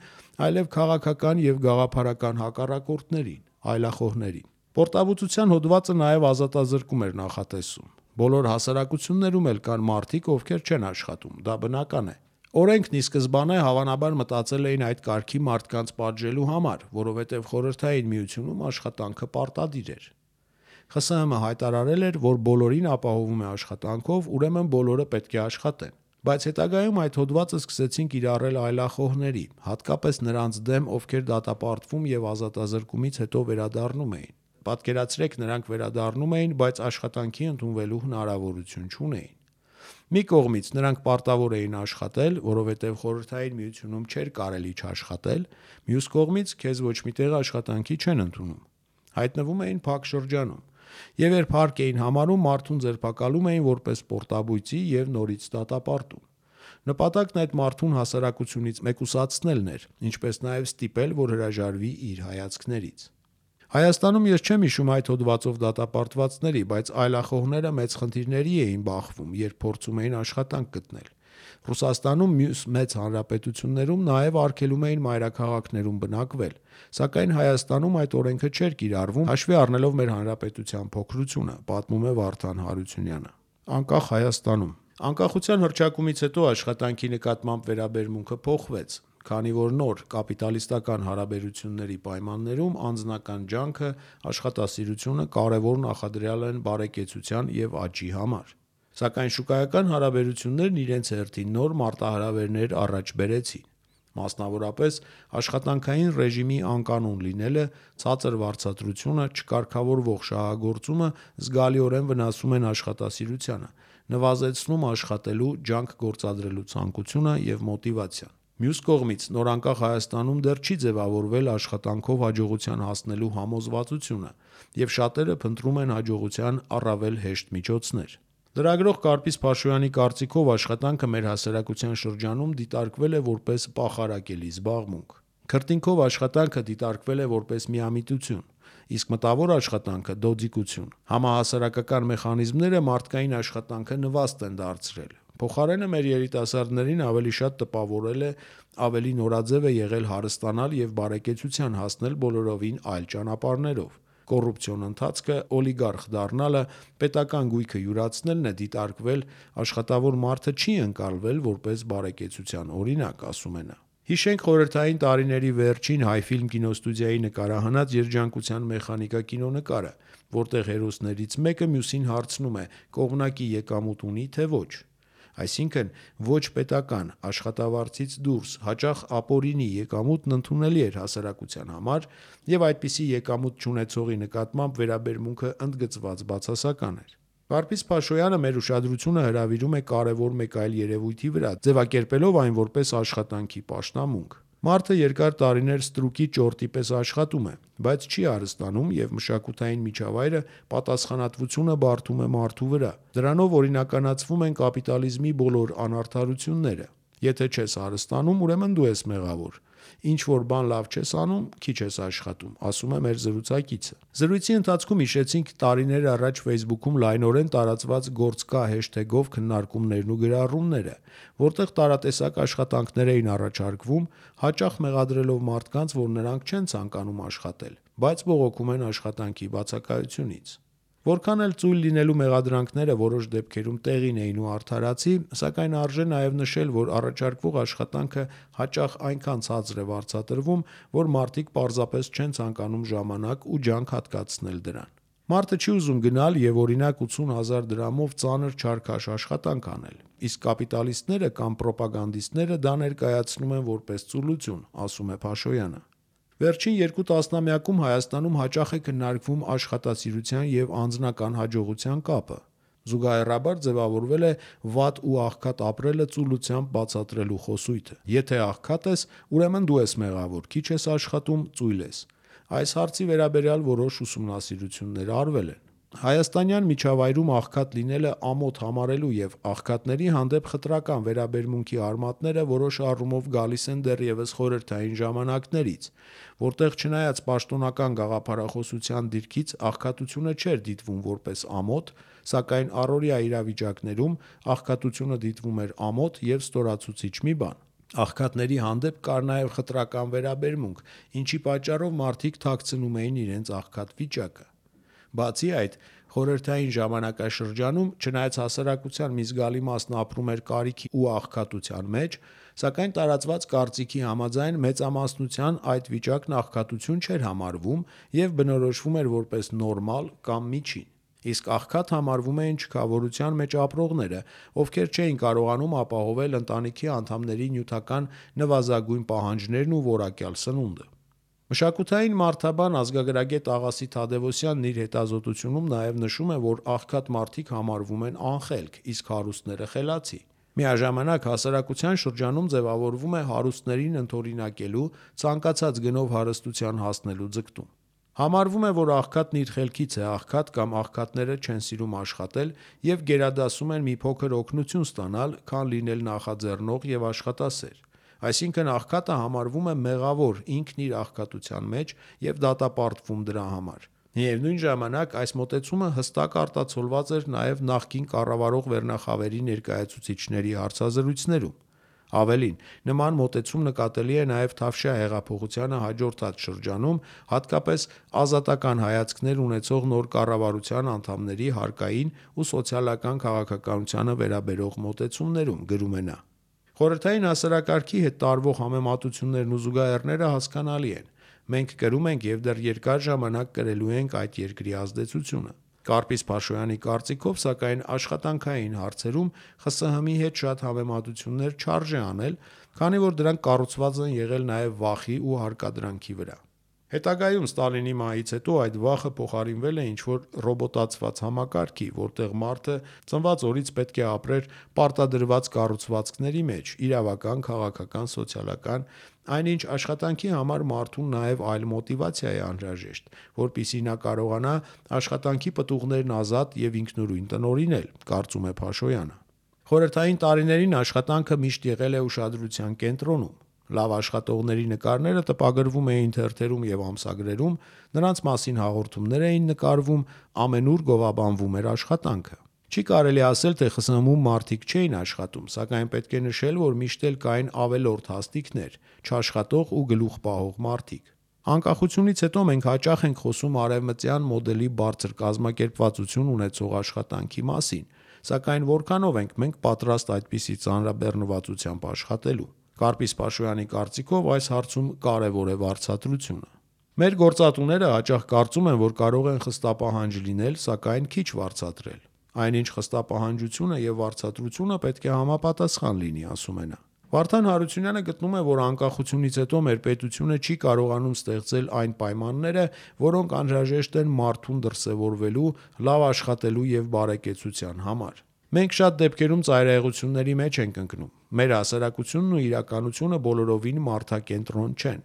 այլև քաղաքական եւ գաղափարական հակառակորդներին, այլախոհներին։ Պորտաբուծության հոդվածը նաև ազատազրկում էր նախատեսում։ Բոլոր հասարակություններում էլ կան մարդիկ, ովքեր չեն աշխատում, դա բնական է։ Օրենքն ի սկզբանե հավանաբար մտածել էին այդ կարգի մարդկանց պատժելու համար, որովհետև խորհրդային միությունում աշխատանքը պարտադիր էր։ ԽՍՀՄ հայտարարել էր, որ բոլորին ապահովում է աշխատանքով, ուրեմն բոլորը պետք է աշխատեն։ Բայց հետագայում այդ հոդվածը սկսեցին կիրառել այլախոհների, հատկապես նրանց դեմ, ովքեր դատապարտվում եւ ազատազրկումից հետո վերադառնում էին։ Պատկերացրեք, նրանք վերադառնում էին, բայց աշխատանքի ընդունվելու հնարավորություն չունեին։ Մի կողմից նրանք պարտավոր էին աշխատել, որովհետև խորհրդային միությունում չէր կարելի չաշխատել, մյուս կողմից քեզ ոչ մի տեղ աշխատանքի չեն ընդունում։ Հայտնվում էին փակ շրջանում։ Եվ երբ հարկ էին համարում, մարդուն ձերբակալում էին որպես պորտաբույծի եւ նորից դատապարտում։ Նպատակն այդ մարդուն հասարակությունից մեկուսացնելն էր, ինչպես նաև ստիպել, որ հրաժարվի իր հայացքներից։ Հայաստանում ես չեմ հիշում այդ հոդվածով դատապարտվածների, բայց այլախոհները մեծ խնդիրների էին բախվում, երբ փորձում էին աշխատանք գտնել։ Ռուսաստանում, մյուս մեծ հանրապետություններում նաև արգելում էին մայրաքաղաքներում բնակվել, սակայն Հայաստանում այդ օրենքը չէր կիրառվում, հաշվի առնելով մեր հանրապետության փոքրությունը, պատմում է Վարդան Հարությունյանը։ Անկախ Հայաստանում անկախության հռչակումից հետո աշխատանքի նկատմամբ վերաբերմունքը փոխվեց, քանի որ նոր կապիտալիստական հարաբերությունների պայմաններում անձնական ջանքը, աշխատասիրությունը կարևոր նախադրյալ են բարեկեցության եւ աճի համար։ Սակայն շուկայական հարաբերություններն իրենց հերթին նոր մարտահրավերներ առաջ բերեցին։ Մասնավորապես աշխատանքային ռեժիմի անկանոն լինելը, ցածր վարձատրությունը, չկարգավորվող շահագործումը զգալիորեն վնասում են աշխատասիրությանը, նվազեցնում աշխատելու, ջանք գործադրելու ցանկությունը եւ մոտիվացիան։ Մյուս կողմից, նորանկախ Հայաստանում դեռ չի ձևավորվել աշխատանքով հաջողության հասնելու համոզվածությունը, եւ շատերը փնտրում են հաջողության առավել հեշտ միջոցներ։ Լրագրող Կարպիս Փաշոյանի կարծիքով աշխատանքը մեր հասարակության շրջանում դիտարկվել է որպես պախարակելի զբաղմունք։ Քրտինքով աշխատանքը դիտարկվել է որպես միամիտություն, իսկ մտավոր աշխատանքը դոձիկություն։ Համահասարակական մեխանիզմները մարդկային աշխատանքը նվաստ են դարձրել։ Փոխարենը մեր երիտասարդներին ավելի շատ տպավորել է, ավելի նորաձև է եղել հարստանալ եւ բարեկեցության հասնել բոլորովին այլ ճանապարհներով։ Կոռուպցիոն ընթացքը, օլիգարխ դառնալը, պետական գույքը յուրացնելն է դիտարկվել, աշխատավոր մարդը չի ընկալվել որպես բարեկեցության օրինակ, ասում է նա։ Հիշենք խորհրդային տարիների վերջին Հայֆիլմ կինոստուդիայի նկարահանած Երջանկության մեխանիկա կինոնկարը, որտեղ հերոսներից մեկը մյուսին հարցնում է՝ կողմնակի եկամուտ ունի թե ոչ։ Այսինքն ոչ պետական, աշխատավարձից դուրս, հաճախ ապօրինի եկամուտն ընդունելի էր հասարակության համար, եւ այդպիսի եկամուտ չունեցողի նկատմամբ վերաբերմունքը ընդգծված բացասական էր։ Վարդգես Փաշոյանը մեր ուշադրությունը հրավիրում է կարևոր մեկ այլ երևույթի վրա, ձևակերպելով այն որպես աշխատանքի պաշտամունք։ Մարդը երկար տարիներ ստրուկի ճորտի պես աշխատում է, բայց չի հարստանում և մշակութային միջավայրը պատասխանատվությունը բարդում է մարդու վրա։ Դրանով օրինականացվում են կապիտալիզմի բոլոր անարդարությունները։ Եթե չես հարստանում, ուրեմն դու ես մեղավոր։ Ինչ որ բան լավ չես անում, քիչ ես աշխատում, ասում է մեր զրուցակիցը։ Զրույցի ընթացքում հիշեցինք տարիներ առաջ Facebook-ում լայնորեն տարածված «Գործ կա» հեշթեգով քննարկումներն ու գրառումները, որտեղ տարատեսակ աշխատանքներ էին առաջարկվում, հաճախ մեղադրելով մարդկանց, որ նրանք չեն ցանկանում աշխատել, բայց բողոքում են աշխատանքի բացակայությունից։ Որքան էլ ծույլ լինելու մեղադրանքները որոշ դեպքերում տեղին էին ու արդարացի, սակայն արժե նաև նշել, որ առաջարկվող աշխատանքը հաճախ այնքան ցածր է վարձատրվում, որ մարդիկ պարզապես չեն ցանկանում ժամանակ ու ջանք հատկացնել դրան։ Մարդը չի ուզում գնալ և օրինակ 80,000 դրամով ծանր չարքաշ աշխատանք անել, իսկ կապիտալիստները կամ պրոպագանդիստները դա ներկայացնում են որպես ծուլություն, ասում է Փաշոյանը։ Վերջին 2 տասնամյակում Հայաստանում հաճախ է քննարկվում աշխատասիրության և անձնական հաջողության կապը։ Զուգահեռաբար ձևավորվել է վատ ու աղքատ ապրելը ծուլությամբ բացատրելու խոսույթը։ Եթե աղքատ ես, ուրեմն դու ես մեղավոր, քիչ ես աշխատում, ծույլ ես։ Այս հարցի վերաբերյալ որոշ ուսումնասիրություններ արվել են։ Հայաստանյան միջավայրում աղքատ լինելը ամոթ համարելու և աղքատների հանդեպ խտրական վերաբերմունքի արմատները որոշ առումով գալիս են դեռևս խորհրդային ժամանակներից, որտեղ չնայած պաշտոնական գաղափարախոսության դիրքից աղքատությունը չէր դիտվում որպես ամոթ, սակայն առօրյա իրավիճակներում աղքատությունը դիտվում էր ամոթ և ստորացուցիչ մի բան։ Աղքատների հանդեպ կար նաև խտրական վերաբերմունք, ինչի պատճառով մարդիկ թաքցնում էին իրենց աղքատ վիճակը։ Բացի այդ, խորհրդային ժամանակաշրջանում, չնայած հասարակության մի զգալի մասն ապրում էր կարիքի ու աղքատության մեջ, սակայն տարածված կարծիքի համաձայն մեծամասնության այդ վիճակն աղքատություն չէր համարվում և բնորոշվում էր որպես նորմալ կամ միջին։ Իսկ աղքատ համարվում էին չքավորության մեջ ապրողները, ովքեր չէին կարողանում ապահովել ընտանիքի անդամների նյութական նվազագույն պահանջներն ու որակյալ սնունդը։ Մշակութային մարդաբան ազգագրագետ Աղասի Թադևոսյանն իր հետազոտությունում նաև նշում է, որ աղքատ մարդիկ համարվում են անխելք, իսկ հարուստները խելացի։ Միաժամանակ հասարակության շրջանում ձևավորվում է հարուստներին ընդօրինակելու, ցանկացած գնով հարստության հասնելու ձգտում։ Համարվում է, որ աղքատն իր խելքից է աղքատ կամ աղքատները չեն սիրում աշխատել և գերադասում են մի փոքր օգնություն ստանալ, քան լինել նախաձեռնող և աշխատասեր։ Այսինքն աղքատը համարվում է մեղավոր ինքն իր աղքատության մեջ և դատապարտվում դրա համար։ Միևնույն ժամանակ այս մոտեցումը հստակ արտացոլված էր նաև նախկին կառավարող վերնախավերի ներկայացուցիչների հարցազրույցներում։ Ավելին, նման մոտեցում նկատելի է նաև Թավշյա հեղափոխությանը հաջորդած շրջանում, հատկապես ազատական հայացքներ ունեցող նոր կառավարության անդամների հարկային ու սոցիալական քաղաքականությանը վերաբերող մոտեցումներում, գրում է նա։ Խորհրդային հասարակարգի հետ տարվող համեմատություններն ու զուգահեռները հասկանալի են։ Մենք կրում ենք և դեռ երկար ժամանակ կրելու ենք այդ երկրի ազդեցությունը։ Կարպիս Փաշոյանի կարծիքով, սակայն, աշխատանքային հարցերում ԽՍՀՄ-ի հետ շատ համեմատություններ չարժե անել, քանի որ դրանք կառուցված են եղել նաև վախի ու հարկադրանքի վրա։ Հետագայում Ստալինի մահից հետո այդ վախը փոխարինվել է ինչ-որ ռոբոտացված համակարգի, որտեղ մարդը ծնված օրից պետք է ապրեր պարտադրված կառուցվածքների մեջ՝ իրավական, քաղաքական, սոցիալական, այնինչ աշխատանքի համար մարդուն նաև այլ մոտիվացիա է անհրաժեշտ, որպեսզի նա կարողանա աշխատանքի պտուղներն ազատ և ինքնուրույն տնօրինել, կարծում է Փաշոյանը։ Խորհրդային տարիներին աշխատանքը միշտ եղել է ուշադրության կենտրոնում։ Լավ աշխատողների նկարները տպագրվում էին թերթերում և ամսագրերում, նրանց մասին հաղորդումներ էին նկարվում, ամենուր գովաբանվում էր աշխատանքը։ Չի կարելի ասել, թե ԽՍՀՄ-ում մարդիկ չէին աշխատում, սակայն պետք է նշել, որ միշտ էլ կային ավելորդ հաստիքներ, չաշխատող ու գլուխ պահող մարդիկ։ Անկախությունից հետո մենք հաճախ ենք խոսում արևմտյան մոդելի բարձր կազմակերպվածություն ունեցող աշխատանքի մասին, սակայն որքանով ենք մենք պատրաստ այդպիսի ծանրաբեռնվածությամբ աշխատելու։ Կարպիս Փաշոյանի կարծիքով այս հարցում կարևոր է վարձատրությունը։ Մեր գործատուները հաճախ կարծում են, որ կարող են խստապահանջ լինել, սակայն քիչ վարձատրել։ Այնինչ խստապահանջությունը և վարձատրությունը պետք է համապատասխան լինի, ասում է նա։ Վարդան Հարությունյանը գտնում է, որ անկախությունից հետո մեր պետությունը չի կարողանում ստեղծել այն պայմանները, որոնք անհրաժեշտ են մարդուն դրսևորվելու, լավ աշխատելու եւ բարեկեցության համար։ Մենք շատ դեպքերում ծայրահեղությունների մեջ ենք ընկնում։ Մեր հասարակությունն ու իրականությունը բոլորովին մարդակենտրոն չեն։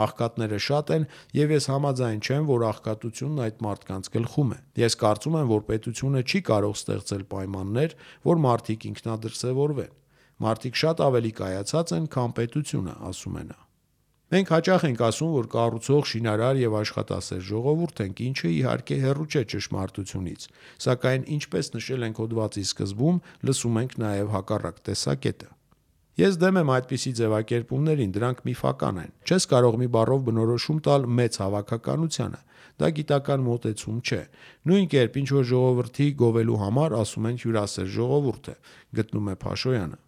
Աղքատները շատ են եւ ես համաձայն չեմ, որ աղքատությունն այդ մարդկանց գլխում է։ Ես կարծում եմ, որ պետությունը չի կարող ստեղծել պայմաններ, որ մարդիկ ինքնադրսևորվեն։ Մարդիկ շատ ավելի կայացած են, քան պետությունը, ասում է նա։ Մենք հաճախ ենք ասում, որ կառուցող, շինարար եւ աշխատասեր ժողովուրդ ենք, ինչը իհարկե հեռու չէ ճշմարտությունից, սակայն ինչպես նշել ենք հոդվածի սկզբում, լսում ենք նաեւ հակառակ տեսակետը։ Ես դեմ եմ այդպիսի ձևակերպումներին, դրանք միֆական են։ Չես կարող մի բառով բնորոշում տալ մեծ հավաքականությանը։ Դա գիտական մոտեցում չէ։ Նույն կերպ ինչ որ ժողովրդի գովելու համար ասում են հյուրասեր ժողովուրդ է, գտնում է Փաշոյանը։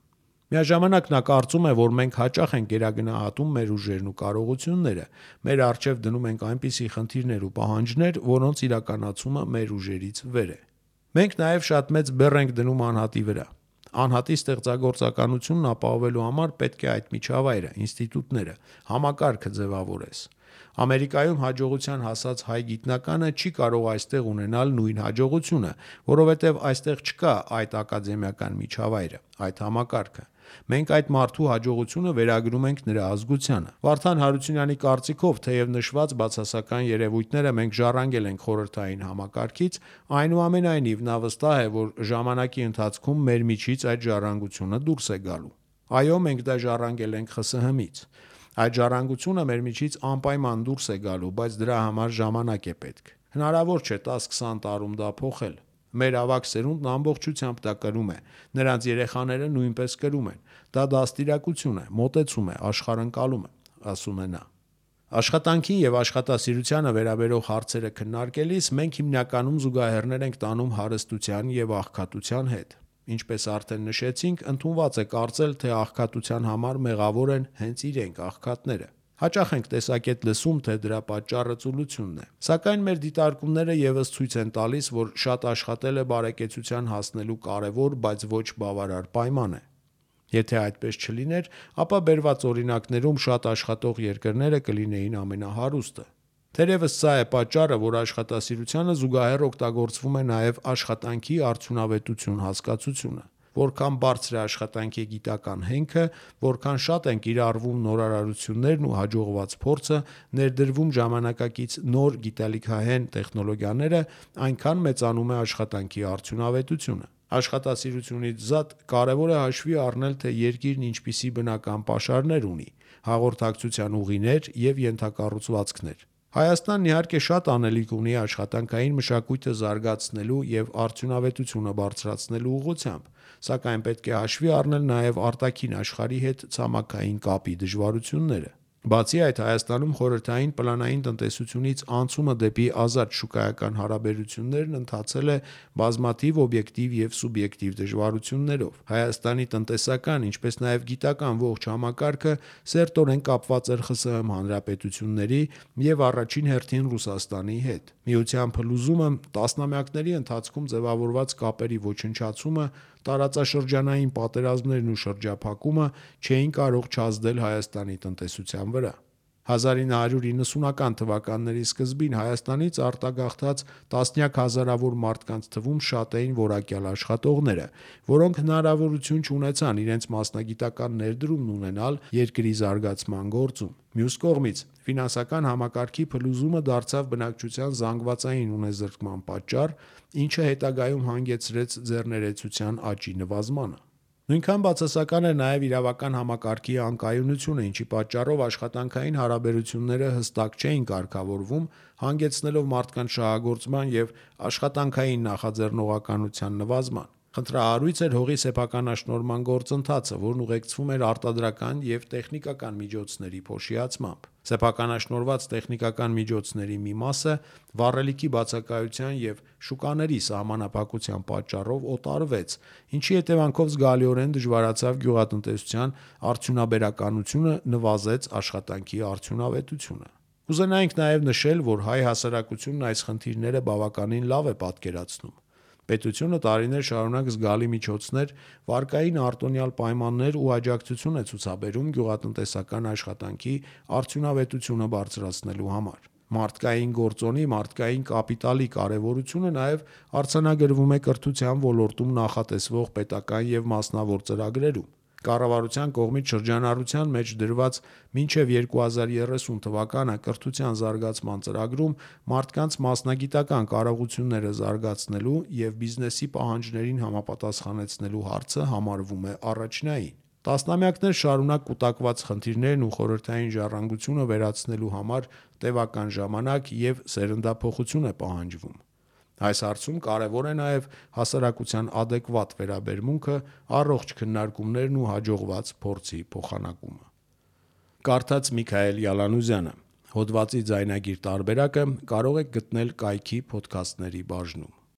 Միաժամանակ նա կարծում է, որ մենք հաճախ ենք գերագնահատում մեր ուժերն ու կարողությունները, մեր առջև դնում ենք այնպիսի խնդիրներ ու պահանջներ, որոնց իրականացումը մեր ուժերից վեր է։ Մենք նաև շատ մեծ բեռ ենք դնում անհատի վրա։ Անհատի ստեղծագործականությունն ապահովելու համար պետք է այդ միջավայրը, ինստիտուտները, համակարգը ձևավորես։ Ամերիկայում հաջողության հասած հայ գիտնականը չի կարող այստեղ ունենալ նույն հաջողությունը, որովհետև այստեղ չկա այդ ակադեմիական միջավայրը, այդ համակարգը։ Մենք այդ մարդու հաջողությունը վերագրում ենք նրա ազգությանը։ Վարդան Հարությունյանի կարծիքով, թեև նշված բացասական երևույթները մենք ժառանգել ենք խորհրդային համակարգից, այնուամենայնիվ նա վստահ է, որ ժամանակի ընթացքում մեր միջից այդ ժառանգությունը դուրս է գալու։ Այո, մենք դա ժառանգել ենք ԽՍՀՄ-ից։ Այդ ժառանգությունը մեր միջից անպայման դուրս է գալու, բայց դրա համար ժամանակ է պետք։ Հնարավոր չէ 10-20 տարում դա փոխել։ Մեր ավագ սերունդն ամբողջությամբ դա կրում է, նրանց երեխաները նույնպես կրում են։ Դա դաստիարակություն է, մոտեցում է, աշխարհընկալում է, ասում է նա։ Աշխատանքին եւ աշխատասիրությանը վերաբերող հարցերը քննարկելիս մենք հիմնականում զուգահեռներ ենք տանում հարստության եւ աղքատության հետ։ Ինչպես արդեն նշեցինք, ընդունված է կարծել, թե աղքատության համար մեղավոր են հենց իրենք աղքատները։ Հաճախ ենք տեսակետ լսում, թե դրա պատճառը ծուլությունն է։ Սակայն մեր դիտարկումները եւս ցույց են տալիս, որ շատ աշխատելը բարեկեցության հասնելու կարևոր, բայց ոչ բավարար պայման է։ Եթե այդպես չլիներ, ապա բերված օրինակներում շատ աշխատող երկրները կլինեին ամենահարուստը։ Թերևս սա է պատճառը, որ աշխատասիրությանը զուգահեռ օգտագործվում է նաև աշխատանքի արդյունավետություն հասկացությունը։ Որքան բարձր է աշխատանքի գիտական հենքը, որքան շատ են կիրառվում նորարարություններն ու հաջողված փորձը, ներդրվում ժամանակակից նոր գիտելիքահեն տեխնոլոգիաները, այնքան մեծանում է աշխատանքի արդյունավետությունը։ Աշխատասիրությունից զատ կարևոր է հաշվի առնել, թե երկիրն ինչպիսի բնական պաշարներ ունի, հաղորդակցության ուղիներ եւ ենթակառուցվածքներ։ Հայաստանն իհարկե շատ անելիք ունի աշխատանքային մշակույթը զարգացնելու եւ արդյունավետությունը բարձրացնելու ուղղությամբ, սակայն պետք է հաշվի առնել նաեւ արտաքին աշխարհի հետ ցամաքային կապի դժվարությունները։ Բացի այդ, Հայաստանում խորհրդային պլանային տնտեսությունից անցումը դեպի ազատ շուկայական հարաբերություններն ընթացել է բազմաթիվ օբյեկտիվ եւ սուբյեկտիվ դժվարություններով։ Հայաստանի տնտեսական, ինչպես նաեւ գիտական ողջ համակարգը սերտորեն կապված էր ԽՍՀՄ հանրապետությունների եւ առաջին հերթին Ռուսաստանի հետ։ Միության փլուզումը, տասնամյակների ընթացքում ձևավորված կապերի ոչնչացումը, տարածաշրջանային պատերազմներն ու շրջափակումը չէին կարող չազդել Հայաստանի տնտեսության վրա։ 1990-ական թվականների սկզբին Հայաստանից արտագաղթած տասնյակ հազարավոր մարդկանց թվում շատ էին որակյալ աշխատողները, որոնք հնարավորություն չունեցան իրենց մասնագիտական ներդրումն ունենալ երկրի զարգացման գործում։ Մյուս կողմից, ֆինանսական համակարգի փլուզումը դարձավ բնակչության զանգվածային ունեզրկման պատճառ, ինչը հետագայում հանգեցրեց ձեռներեցության աճի նվազմանը։ Նույնքան բացասական էր նաև իրավական համակարգի անկայունությունը, ինչի պատճառով աշխատանքային հարաբերությունները հստակ չէին կարգավորվում, հանգեցնելով մարդկանց շահագործման եւ աշխատանքային նախաձեռնողականության նվազման։ Խնդրահարույց էր հողի սեփականաշնորհման գործընթացը, որն ուղեկցվում էր արտադրական եւ տեխնիկական միջոցների փոշիացմամբ։ Սեփականաշնորհված տեխնիկական միջոցների մի մասը վառելիքի բացակայության եւ շուկաների սահմանափակության պատճառով օտարվեց, ինչի հետևանքով զգալիորեն դժվարացավ գյուղատնտեսության արդյունաբերականությունը, նվազեց աշխատանքի արդյունավետությունը։ Կուզենայինք նաև նշել, որ հայ հասարակությունն այս խնդիրները բավականին լավ է պատկերացնում։ Պետությունը տարիներ շարունակ զգալի միջոցներ, վարկային արտոնյալ պայմաններ ու աջակցություն է ցուցաբերում գյուղատնտեսական աշխատանքի արդյունավետությունը բարձրացնելու համար։ Մարդկային գործոնի, մարդկային կապիտալի կարևորությունը նաև արձանագրվում է կրթության ոլորտում նախատեսվող պետական և մասնավոր ծրագրերում։ Կառավարության կողմից շրջանառության մեջ դրված մինչև 2030 թվականը կրթության զարգացման ծրագրում մարդկանց մասնագիտական կարողությունները զարգացնելու և բիզնեսի պահանջներին համապատասխանեցնելու հարցը համարվում է առաջնային։ Տասնամյակներ շարունակ կուտակված խնդիրներն ու խորհրդային ժառանգությունը վերացնելու համար տևական ժամանակ և սերնդափոխություն է պահանջվում։ Այս հարցում կարևոր է նաև հասարակության ադեկվատ վերաբերմունքը, առողջ քննարկումներն ու հաջողված փորձի փոխանակումը։ Կարդաց Միքայել Յալանուզյանը։ Հոդվածի ձայնագիր տարբերակը կարող եք գտնել կայքի փոդքասթների բաժնում։